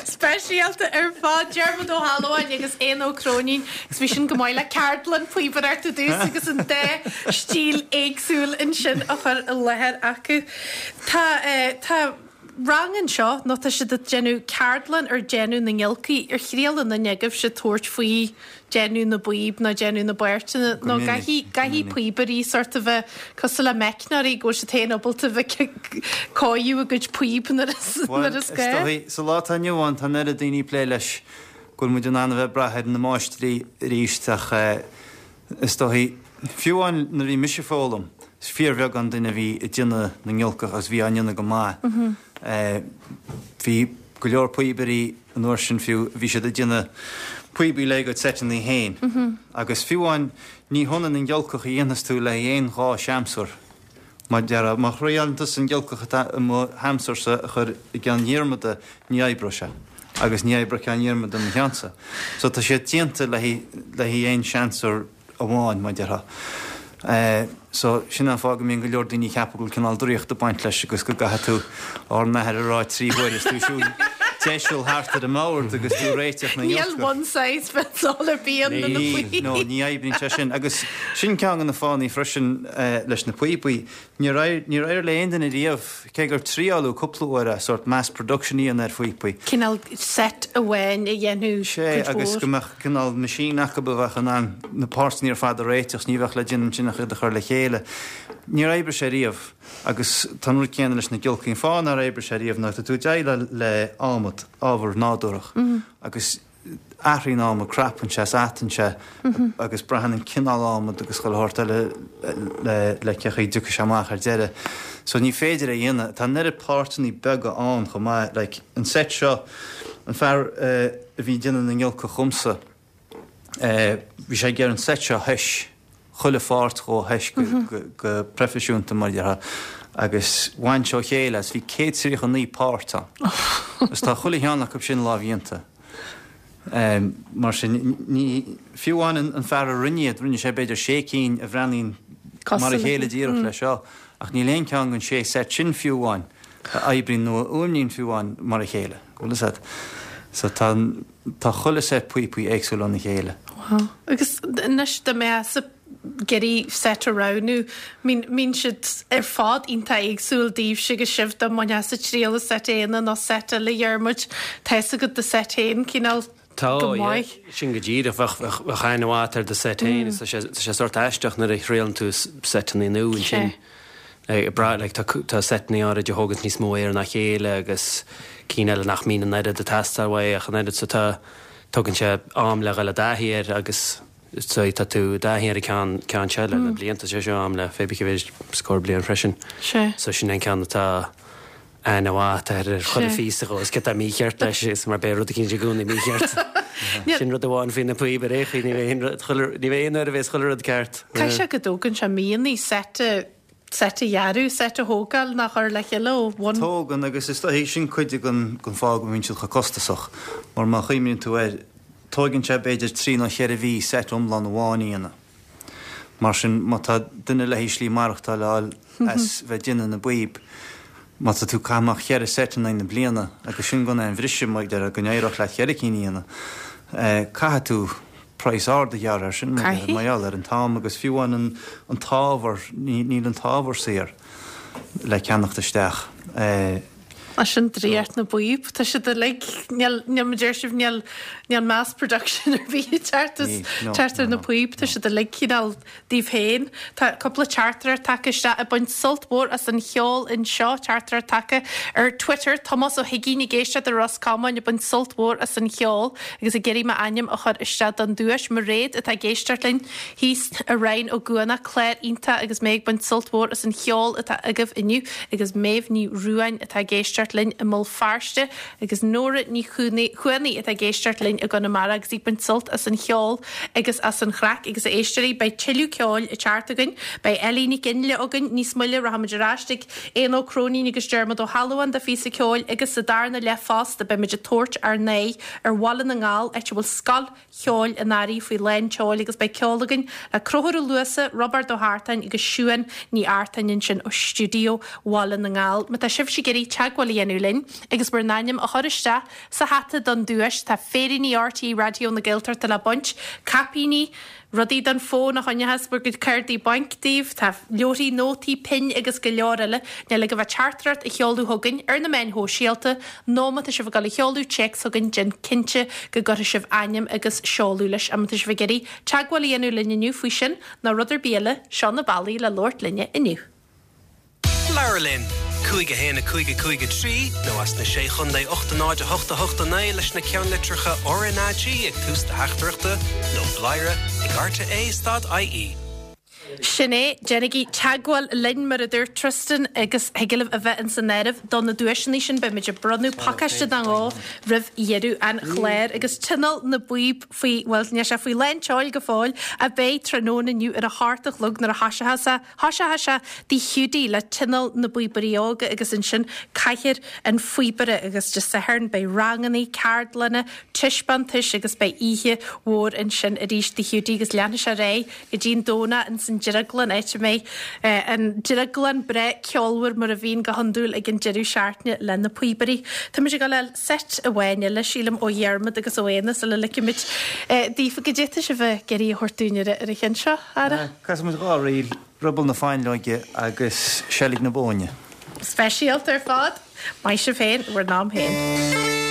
Speisialta ar fad, Diarmuid Ó hAlmhain agus Éanna Ó Cróinín agus bhí sin go maith le ceardlann píobaireachta dtús agus an dá stíl éagsúil ansin á chur i láthair acu. Tá, tá rang anseo nó tá siad ag déanamh ceardlann ar déanamh na ngiolcaí. Ar thriail aon duine agaibhse tabhairt faoi déanamh na bpíob nó déanamh na bpáirteanna nó caithfidh, caithfidh píobairí sort a bheith cosúil le meicneoirí go bhfuil siad féin ábalta bheith ag cóiriú a gcuid píob nuair is, nuair is gá. Is dóigh, sa lá atá inniu ann tá an oiread daoine ag plé leis go bhfuil muid in ann a bheith ag brath ar na máistrí arís ach is dóigh, fiú amháin nuair a bhí mise ag foghlaim, is fíorbheagán duine a bhí ag déanamh na ngiolcach agus bhí á ndéanamh go maith. Bhí go leor píobairí an uair sin fiú, bhí siad ag déanamh píobaí le a gcuid seiteanna féin. Agus fiú amháin ní hionann an ghiolcach a dhéanfas tú le haghaidh aon dhá sheamsúr. Mar déarfá, má thriaileann tusa an ghiolcach atá i mo sheamsúrsa a chur i gceann Dhiarmada, ní oibreoidh sé. Agus ní oibreoidh ceann Dhiarmada i mo cheannsa. So tá siad déanta le haghaidh aon seamsúr amháin, mar déarfá. So, sin an fáth go mbíonn go leor daoine ag ceapadh go bhfuil cineál draíocht ag baint leis agus go gcaithfidh tú Ár nAthair a rá trí huaire is tú ag siúl. deiseal thart ar an mbord agus tú ag réiteach na ngiolcach. Níl one size fits all ar bith ann do na píobaí. No, ní oibríonn sé sin. Agus sin ceann de na fáthanna freisin leis na píobaí. Níor éirigh le aon duine riamh, cé gur triáladh cúpla uair é, sórt mass production a dhéanamh ar phíopaí. Cineál set amháin a dhéanamh cuid mhór. Sea, agus go mbeadh cineál machine acu a bheadh in ann na páirteanna ar fad a réiteach, ní bheadh le déanamh ansin ach iad a chur le chéile. Níor oibrigh sé riamh. Agus tá an rud céanna leis na giolcaí. An fáth nár oibrigh sé riamh ná tá tú ag déileáil le adhmad, ábhar nádúrach, agus athraíonn adhmad, crapann sé is atann sé agus braitheann an cineál adhmad agus chuile shórt eile le cé chaoi a dtiocfaidh sé amach ar deireadh. So ní féidir é a dhéanamh. Tá an oiread páirteanna beaga ann chomh maith. Like, an set seo, an fear a bhí ag déanamh na ngiolcach dhomsa, bhí sé ag iarraidh an set seo a thoighis, chuile pháirt dhó a thoighis go proifisiúnta mar a déarfá agus bhain sé ó chéile as, bhí 139 páirt ann agus tá chuile cheann acu sin lámhdhéanta. Mar sin, ní, fiú amháin an fear a rinne iad, rinne sé b'fhéidir sé cinn a bhreathnaíonn mar a chéile díreach le seo, ach níl aon cheann den sé set sin fiú amháin a oibríonn nó a fhuaimníonn fiú amháin mar a chéile. Bhfuil fhios agat? So tá an, tá chuile set píopaí éagsúil óna chéile. Wow. Agus anois dá mbeifeása ag iarraidh set a roghnú, mbíonn, mbíonn siad ar fad iontach éagsúil daoibhse agus sibh dá mbainfeása triail as set Éanna nó set eile Dhiarmuid, tá fhios agat do set féin cineál Tá, go yeah. maith. Sin go díreach. Bheadh, bheadh, bheadh aithne mhaith agat ar do set féin. Tá sé, tá sé sórt aisteach nuair a thriaileann tú setanna nua ansin. Sea. Ag brath, like, tá, tá setanna áirid a thóganns níos mó aeir ná chéile agus cinn eile nach mbíonn an oiread ag teastáil uaidh ach an oiread so tá, tógann sé am le dhul i dtaithí air agus so tá tú i dtaithí ar an ceann, ceann seo le na blianta, sé seo am le pé bith cé mhéid scór bliain freisin. Sea. So sin é an ceann atá aithne mhaith agat ar chuile phíosa dhó is céard atá mícheart leis is mar beidh rud eicínt i gcónaí mícheart. Sin rud amháin faoi na píob ar aon chaoi, ní bheidh aon rud, chuile, ní bheidh aon uair a bheas chuile rud ceart. Caithfidh sé go dtógann sé míonna set a, set a dhearadh, set a thógáil nó a chur le chéile ó bhun. Tógann agus is dóichí sin cuid den, den fáth go mbíonn siad chomh costasach mar má chuimhníonn tú air, tóigeann sé b'fhéidir trí nó cheithre mhí set iomlán amháin a dhéanamh. Mar sin, má tá duine le haghaidh slí maireachtáil a fháil as bheith ag déanamh na bpíob, má tá tú ag caitheamh amach cheithre seit in aghaidh na bliana, agus sin gan aon bhriseadh, mar a déarfá, go n-éireodh leat cheithre cinn a dhéanamh, caithfidh tú praghas ard a ghearradh air sin, mar gheall ar an t-am agus fiú amháin an t-ábhar, níl an t-ábhar saor le ceannacht isteach. Sin draíocht na bpíob. Tá siad uilig, níl, níl, mar deir sibh, níl, níl mass production ar bith ag teacht as, teacht ar na píob. Tá siad uilig cineál daoibh féin. Tá cúpla teachtaireacht tagtha isteach ag baint sult mhór as an cheol anseo, teachtaireacht tagtha ar Twitter, Tomás Ó hUigínn ag éisteacht i Ros Comáin ag baint sult mhór as an cheol agus ag iarraidh m'ainm a chur isteach don duais. Mairéad atá ag éisteacht linn thíos i Rinn Ó gCuanach, clár iontach agus mé ag baint sult mhór as an cheol atá agaibh inniu. agus Méabh Ní Ruáin atá ag éisteacht linn i mBéal Feirste agus Nóra Ní Chuanaigh atá ag éisteacht linn i gConamara agus í ag baint sult as an cheol agus as an chraic agus a éisteoirí beidh tuilleadh ceoil ag teacht againn. Beidh Ellie Nic Fhionnghaile againn níos moille, rachaimid ar ais ag Éanna Ó Cróinín agus Diarmuid Ó hAlmhain do phíosa ceoil agus sa darna leath fosta beimid ag tabhairt ár n-aghaidh ar Bhaile na nGall áit a bhfuil Scoil Cheoil an Earraigh faoi lán tseoil agus beidh ceol againn le Conchúr Ó Luasa, Roibeárd Ó hEartáin agus Siún Ní Artáin ansin ó stiúideo Bhaile na nGall. Má tá sibhse ag iarraidh teagmháil a dhéanamh linn agus bhur n-ainm a chur isteach sa hata don duais, tá féiríní RTÉ Raidió na Gaeltachta le baint, caipíní, rudaí don fón a choinneochas bhur gcuid cártaí bainc daoibh, tá leabharthaí nótaí, pinn agus go leor eile. Níl ach a bheith teachtaireacht a sheoladh chugainn ar na meáin shóisialta nó má tá sibh ag dul a sheoladh téacs chugainn déan cinnte go gcuirfidh sibh ainm agus seoladh leis. Má tá sibh ag iarraidh teagmháil a dhéanamh linn inniu faoi sin nó rud ar bith eile, seo na bealaí le labhairt linne inniu. Labhair linn! 5 1 5 5 3 nó as na Sé Chondae 8 0 8 8 9 leis na ceannlitreacha RnaG ag tús do theachtaireachta nó bladhaire ag rte stad ie. Sin é, déanaigí teagmháil linn, mar a dúirt Tristan, agus thig libh a bheith ins an áireamh do na duaiseanna sin. Beimid ag bronnadh pacáiste nó dhó roimh dheireadh an chláir. Agus Tionól na bPíob faoi, bhuel, níl sé faoi lán tseoil go fóill, ach beidh tráthnóna inniu ar a hocht a chlog nuair a thoiseochas sé, thoiseochas sé Tigh Hiúdaí le Tionól na bPíobairí Óga agus ansin Cathaoir an Phíobaire agus Dé Sathairn beidh rangannaí, ceardlanna, taispeántais agus beidh oíche mhór ansin arís Tigh Hiúdaí agus leanfaidh sé ar aghaidh go dtí an Domhnach ins an. Drioglann, áit a mbeidh an Drioglann breá ceolmhar mar a bhíonn go hiondúil ag an deireadh seachtaine le na píobairí. Táimid ag dul a fháil seit amháin eile, sílim, ó Dhiarmaid agus ó Éanna sula ligfimid daofa. Goidé atá sibh ag iarraidh a thabhairt dúinn ar an cheann seo, a fheara? Casfaidh muid dha ríl, Ruball na Fáinleoige agus Seilg na Bóinne. Speisialta ar fad. Maith sibh féin, bhur n-am féin.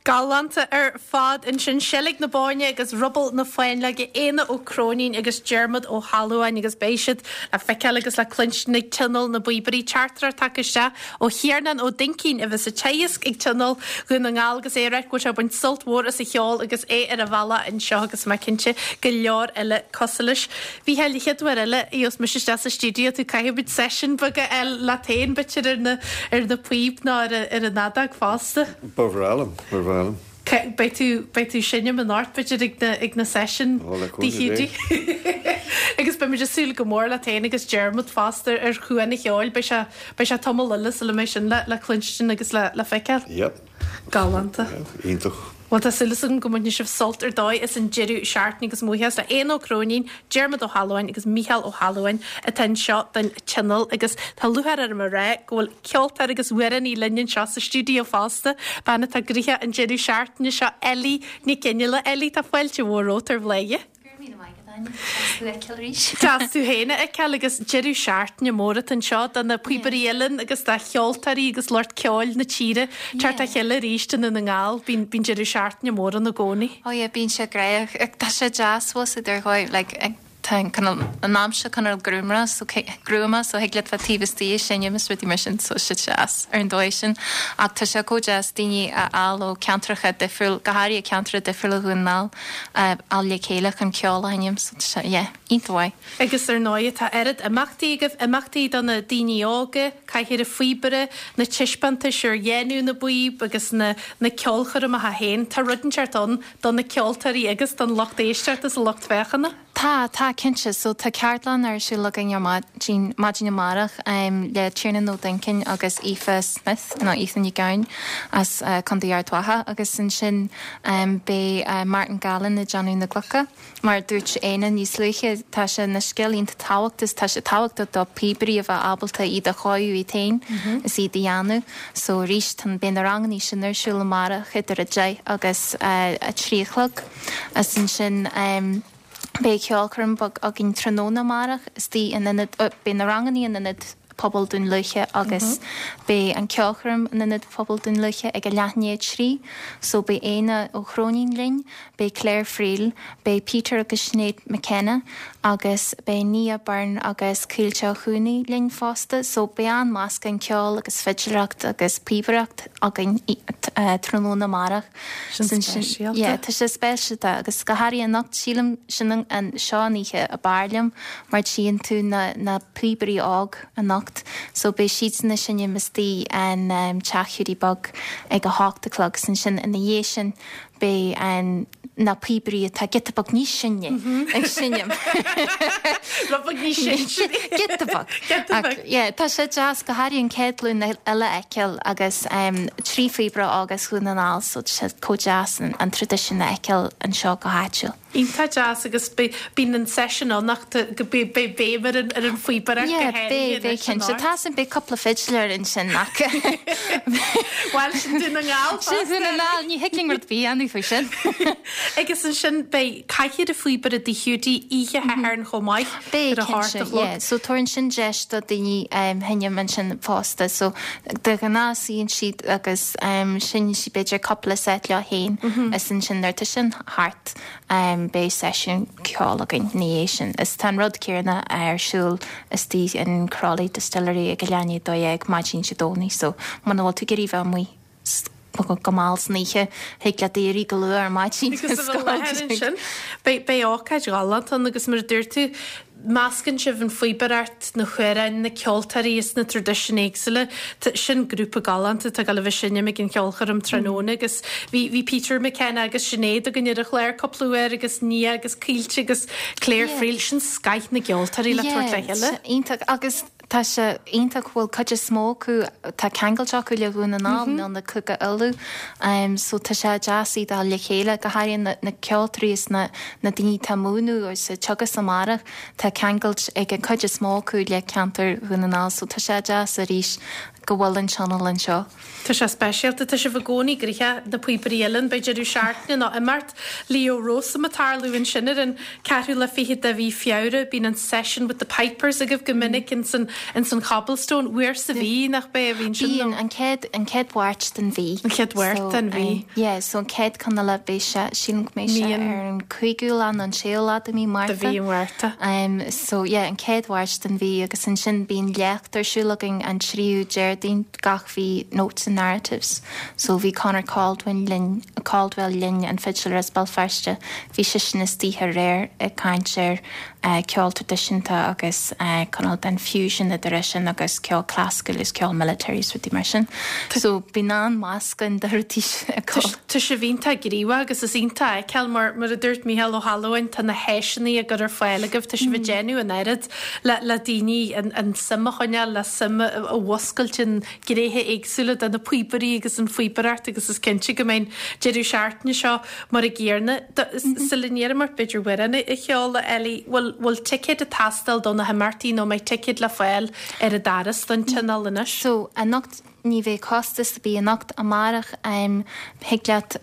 Galánta ar fad ansin, Seilg na Bóinne agus Ruball na Fáinleoige, Éanna Ó Cróinín agus Diarmuid Ó hAlmhain agus beidh siad le feiceáil agus le cluinstin ag Tionól na bPíobairí. Teachtaireacht tagtha isteach ó Thiarnán Ó Duincín a bheas ag teagasc ag Tionól Dhún na nGall agus é ag rá go bhfuil sé ag baint sult mhór as an cheol agus é ar a bhealach anseo agus mé cinnte go leor eile cosúil leis. Mhícheáil, an chéad uair eile a gheobhas mise isteach sa stiúideo tú caithfidh muid seisiún beag a fháil leat féin b'fhéidir ar na ar na píob nó ar ar an fheadóg fosta. Ba bhreá liom, ba bhreá liom. Beidh tú beidh tú ag seinm anocht b'fhéidir ag na ag na seisiúin Ó, le cúnamh Dé. Agus beimid ag súil go mór leat féin agus Diarmuid fosta ar Chuan an Cheoil. Beidh sé beidh sé tamall eile sula mbeidh sin le le cluinstin agus le le feiceáil. Yep. Galánta. Iontach. Bhuel, tá súil agam go mbainfidh sibh sult ar dóigh as an deireadh seachtaine agus mo bhuíochas le Éanna Ó Cróinín, Diarmuid Ó hAlmhain agus Mícheál Ó hAlmhain atá anseo don Tionól agus tá lúcháir orm a rá go bhfuil ceoltóir agus amhránaí linn anseo sa stiúideo fosta, bean atá gnoitheach an deireadh seachtaine seo, Ellie Nic Fhionnghaile. Ellie, tá fáilte mhór romhat ar Bhladhaire. Go raibh míle maith agat, Áine. Deas thú a fheiceáil arís. Deas tú féin a fheiceáil agus deireadh seachtaine mór atá anseo do na píobairí uilleann agus do cheoltóirí agus lucht ceoil na tíre teacht le chéile arís i nDún na nGall. Bíonn bíonn deireadh seachtaine mór ann i gcónaí. Oh yeah, bíonn sé gnóthach. Tá sé deas fós idir dhóigh, like, tá an cineál, an aimsir cineál gruama so gruama so thig leat bheith taobh istigh ag seinm is rudaí mar sin so tá sé deas ar an dóigh sin. Ach tá sé chomh deas daoine a fháil ó ceantracha difriúil, go háirithe ceantracha difriúla Dhún na nGall. a fháil le chéile chun ceol a sheinm so tá sé, yeah, iontach mhaith. Agus ar ndóigh tá oiread imeachtaí agaibh, imeachtaí do na daoine óga, Cathaoir an Phíobaire, na taispeántais ar dhéanamh na bpíob agus na na ceolchoirmeacha féin. Tá rud inteacht ann do na ceoltóirí agus don lucht éisteachta is an lucht féachana. Tá, tá, cinnte. So tá ceardlann ar siúl againn ar maidin, maidin amárach le Tiarnán Ó Duincín agus Aoife Smith, nó Aoife Ní Gabhann as Contae Ard Mhacha agus ansin beidh Martin Gallen ag déanamh na gclocha. Mar a dúirt Éanna níos luaithe, tá sé ina scil iontach tábhachtach is tá sé tábhachtach do phíobairí a bheith ábalta iad a chóiriú iad féin is iad a dhéanamh. So arís, tá, beidh na rangannaí sin ar siúl amárach idir 10 agus 3 a chlog. Is ansin beidh ceolchoirm beag againn tráthnóna amárach istigh in ionad, beidh na rangannaí in ionad. Pobail Dún Lúiche agus beidh an ceolchoirm in Ionad Pobail Dún Lúiche ag a leath i ndiaidh 3 so beidh Éanna Ó Cróinín linn, beidh Claire Friel, beidh Peter agus Sinéad McKenna agus beidh Nia Byrne agus Caoilte Ó Cuanaigh linn fosta so beidh an-meascán ceoil agus fidiléireacht agus píobaireacht againn tráthnóna amárach. Sin speisialta. Yeah, tá sé speisialta agus go háirithe anocht sílim sin an seo an oíche ab fhearr liom mar tchíonn tú na na píobairí óg anocht so beidh siadsan ag seinm istigh in Teach Hiúdaí Beag ag a hocht a chlog 's ansin ina dhiaidh sin beidh an na píobairí atá giota beag níos sine ag seinm. Rud beag níos sine. Giota beag. Giota beag. Ach yeah, tá sé deas go háirithe an chéad ghlúin eile a fheiceáil agus 3 phíobaire óg as Dhún na nGall so tá sé chomh deas an traidisiún a fheiceáil anseo go háitiúil. Iontach deas agus bíonn an seisiún ann ach go beidh béim ar an ar an phíobaireacht go Yeah, háirithe beidh, beidh anois cinnte. anocht. Tá san, beidh cúpla fidiléir ansin ach Bhuel, sin Dún na nGall Sin fosta. Dún na nGall, ní thig linn rud ar bith a dhéanamh faoi sin. Agus ansin beidh cathaoir an phíobaire i dTigh Hiúdaí oíche Shathairn chomh maith Beidh, ar a hocht cinnte, a chlog. yeah. So tabharann sin deis do daoine seinm ansin fosta. So de ghnáth suíonn siad agus seinneann siad b'fhéidir cúpla set leo féin is ansin nuair atá sin thart beidh seisiún ceoil againn ina dhiaidh sin. Is tá an rud céanna ar siúl istigh in Crolly Distillery ag a leath i ndiaidh 12 maidin Dé Domhnaigh so muna bhfuil tú ag iarraidh bheith amuigh go mall san oíche, thig leat éirí go luath ar maidin agus a bheith i láthair ansin. Beidh ócáid ghalánta ann agus mar a dúirt tú, meascann sibh an phíobaireacht, na hamhráin, na ceoltóirí is na traidisiúin éagsúla. Sin grúpa galánta atá ag dul a bheith ag seinm ag an cheolchoirm tráthnóna agus bhí bhí Peter McKenna agus Sinéad againn ar an chlár cúpla uair agus Nia agus Caoilte agus Claire Friel, sin scoith na gceoltóirí le tabhairt le chéile. Iontach agus Tá sé iontach go bhfuil cuid is mó acu, tá ceangailt acu le Dhún na nGall nó na Cúige Uladh so tá sé deas iad a fháil le chéile, go háirithe na na ceoltóirí is na na daoine atá ag múineadh agus ag teagasc amárach, tá ceangailt ag an cuid is mó acu le ceantar Dhún na nGall so tá sé deas arís go bhfuil an tionól anseo. Tá sé speisialta. Tá sibh i gcónaí gnoitheach, na píobairí uilleann. Beidh deireadh seachtaine nó imeacht Leo Rowsome ag tarlú ansin ar an ceathrú lá fichead de mhí Feabhra. Bíonn an Session with the Pipers agaibh go minic ins an ins an Cobblestone. Uair sa mhí, nach bea, a bhíonn sin nó? Bíonn, an chéad, an chéad Mháirt den mhí. An chéad Mháirt den mhí. Yeah, so an chéad ceann eile beidh sé, sílim go mbeidh sé ar an cúigiú lá nó an séú lá de mhí Márta. De mhí Mhárta. So yeah, an chéad Mháirt den mhí agus ansin bíonn léacht ar siúl againn an tríú Déardaoin gach mhí Notes and Narratives. So bhí Conor Caldwell linn, Caldwell linn, an fidiléir as Béal Feirste, bhí seisean istigh aréir ag caint ar ceol traidisiúnta agus cineál den fusion idir é sin agus ceol clasaiceach agus ceol military is rudaí mar sin. So bíonn an-mheascán de rudaí ag dul. Tá sibh iontach gníomhach agus is iontach a fheiceáil mar, mar a dúirt Mícheál Ó hAlmhain, tá na háiseanna á gcur ar fáil agaibh, tá sibh ag déanamh an oiread le, le daoine an, an suim a choinneáil, le suim a, a mhuscailt in gnéithe éagsúla de na píobairí agus an phíobaireacht agus is cinnte go mbeidh an deireadh seachtaine seo mar an gcéanna. Sula n-iarraim ort b'fhéidir amhrán a cheol, a Ellie, bhfuil, bhfuil ticéid ag teastáil do na himeachtaí nó an mbeidh ticéid le fáil ar an doras don tionól anois? So, anocht ní bheidh costas ar bith anocht, amárach thig leat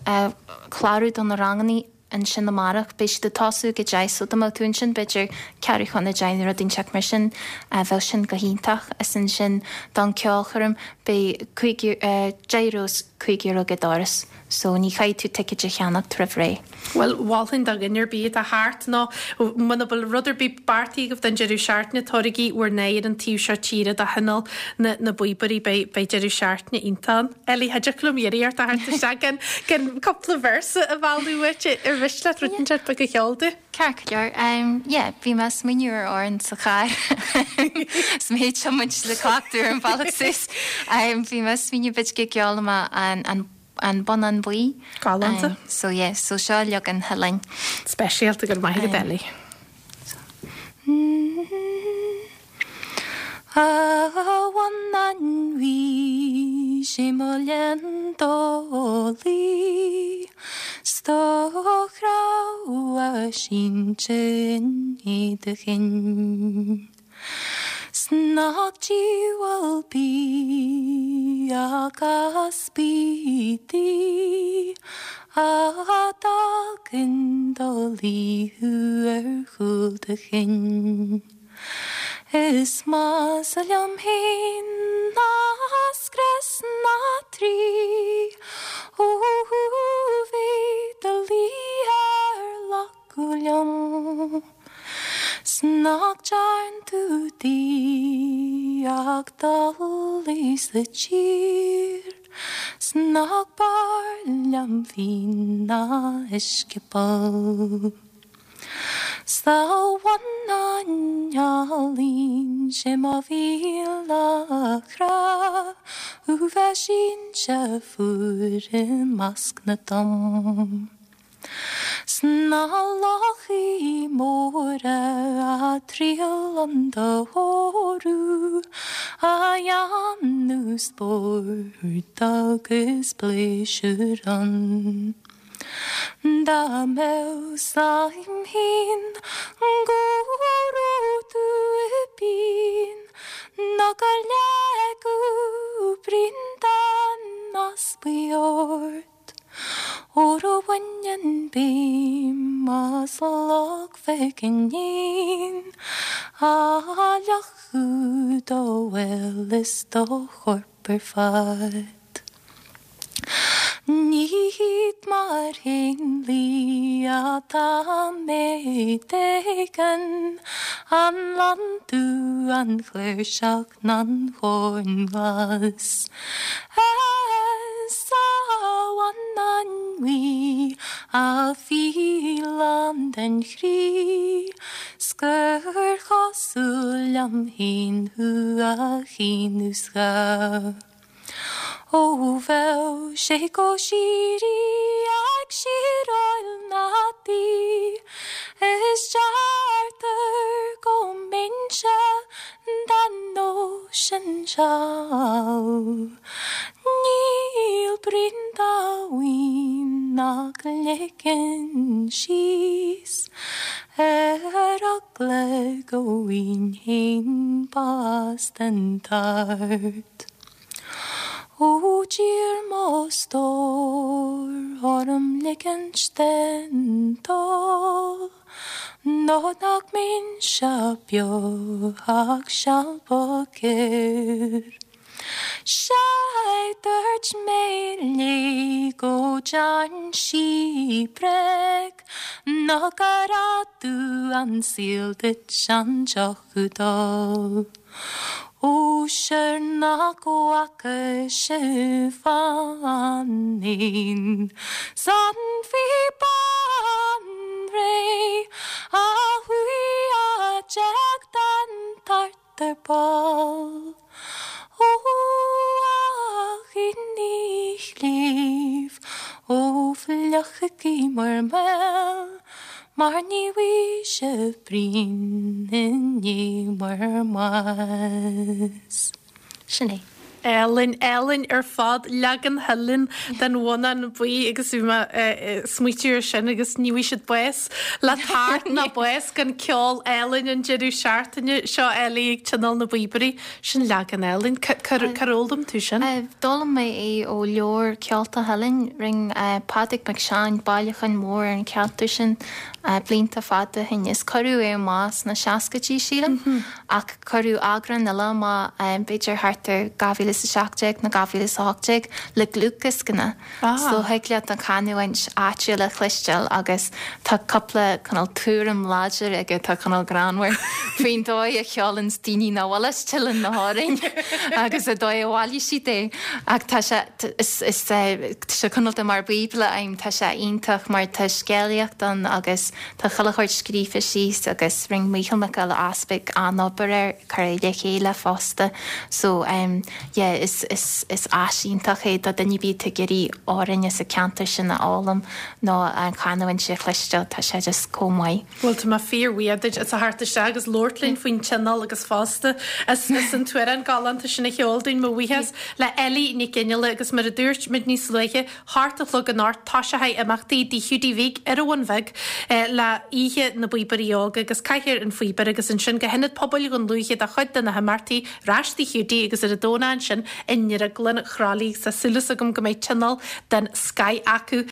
clárú do na rangannaí ansin amárach. Beidh siad ag tosú ag a deich so dá mbeadh tú ansin b'fhéidir ceathrú chun a deich nó rud inteacht mar sin bheadh sin go hiontach. Is ansin don ceolchoirm beidh €10 is €5 ag an doras so ní chaithfidh tú ticéid a cheannacht roimh ré. Bhuel, mholfainn do dhuine ar bith atá thart nó muna bhfuil rud ar bith beartaithe agaibh don deireadh seachtaine, tabhairigí bhur n-aghaidh ar an taobh seo tíre do thionól na na bpíobairí, beidh beidh deireadh seachtaine iontach ann. Ellie, cha dtiocfadh liom iarraidh ort a theacht isteach gan gan cúpla véarsa a mhealladh uait, ar mhiste leat rud inteacht beag a cheol dúinn? Ceart go leor. Yeah, bhí mé ag smaoineamh ar amhrán sa charr is mé ag tiomáint le cleachtadh ar an bhealach suas. Bhí mé ag smaoineamh b'fhéidir go gceolfaidh mé an an An Bonnán Buí. Galánta. So yeah, so seo leagan Thuilinn. Speisialta, go raibh maith agat Ellie. A bhonnáin bhuí, sé mo léan dólaí, 's do chreamha sínte i do chinn. 'S nach diabhal bia agus bídí a d'fhág in do luí thú ar chúl do chinn. Is measa liom fhéin ná scrios na Traí Ó bheith do luí ar lacadh liom 'S nach dtearn tú di ach dul í sa tír 'S nach b'fhearr liom fíon ná uisce poll. 'S a bhannáin álainn 'sé mo mhíle chrá Thú bheith sínte fuar i measc na dtom 'S na lochaí móra a' triall 'un do thórú A dhéanamh spóirt agus pléisiúr ann. Dá mbeadh 's a'm fhéin go raibh tú i bpian Nó gur leagadh bruíon den easpaidh ort Óir ó bhaineann béim as Loch Mhic an Éin A fhliuchadh do fheoil is do chorp ar fad. Ní hiad mar éanlaith atá mé d'éigean, an lon dubh, an chláirseach ná an corn glas. Is a bhannáin bhuí, a fhíleán den chroí, 's gur chosúil liom féin thú a chaoineadh 's dhá. Ó bheadh sé go síoraí ag siráil na dí, Is deirtear go mbeinnse den nós sin seal. Níl braon dá mhaoin nach ligfinn síos ar eagla go bhfaighinn féin bás den tart. Ó d'iarr mo stór orm ligint den dól Nó nach mbeinnse beo ach seal ba ghearr. Sea dúirt mé léi go dtearn sí bréag Nó gur fhada an saol duit an deoch a d'ól. Ó sure nach bhfaca sibh an éan 's an phíobán réidh a chuaigh a d'éag den tart ar ball. Ó a dhaoine chléibh, ó fliuchaigí bhur mbéil. Mar ní bhfaighidh sibh braon i ndiaidh bhur mbáis. Sin é. Álainn, álainn ar fad, leagan Theilinn den Bhonnán Buí agus bhí mé ag smaoitiú ar sin agus ní bhfaighidh siad bás le tart ná bás gan ceol álainn an deireadh seachtaine seo Ellie ag Tionól na bPíobairí. Sin leagan álainn. Cár fhoghlaim tú sin? D'fhoghlaim mé é ó leabhar Ceolta Theilinn. Rinne Pádraig Mac Seáin bailiúchán mór ar an cheantar sin blianta fada ó shin is cuireadh é amach sna seascaidí, sílim, ach cuireadh eagrán eile amach b'fhéidir thart ar 2017 nó 2018 le dlúthdhioscanna. So thig leat an chanúint áitiúil a chloisteáil agus tá cúpla cineál tuairim láidir aige atá cineál greannmhar faoin dóigh a cheolanns daoine nach bhfuil as Teileann na hamhráin agus an dóigh a bhailigh siad é. Ach tá sé, is, is, tá sé cineál de mar bíobla a'm, tá sé iontach mar tá scéalaíocht ann agus tá chuile shórt scríofa síos agus rinne Mícheál Mac Giolla Easpaig an-obair air, cur é le chéile fosta. So, eh, yeah, is, is, is áis iontach é do duine ar bith atá ag iarraidh amhráin as an ceantar sin a fhoghlaim nó an chanúint a chloisteáil, tá sé just chomh maith. Bhuel, tá mé fíor-bhuíoch duit as a theacht isteach agus labhairt linn faoin tionól agus fosta as, as an t-amhrán galánta sin a cheol dúinn. Mo bhuíochas le Ellie Nic Fhionnghaile agus mar a dúirt muid níos luaithe, hocht a chlog anocht, toiseochaidh imeachtaí i dTigh Hiúdaí Bhig ar an Bhun Bheag le Oíche na bPíobairí Óga agus Cathaoir an Phíobaire agus ansin go hIonad Pobail Dhún Lúiche do chuid de na himeachtaí ar ais Tigh Hiúdaí agus ar an Domhnach ansin i nDrioglann Chroithlí. Tá súil agam go mbeidh tionól den scoith acu.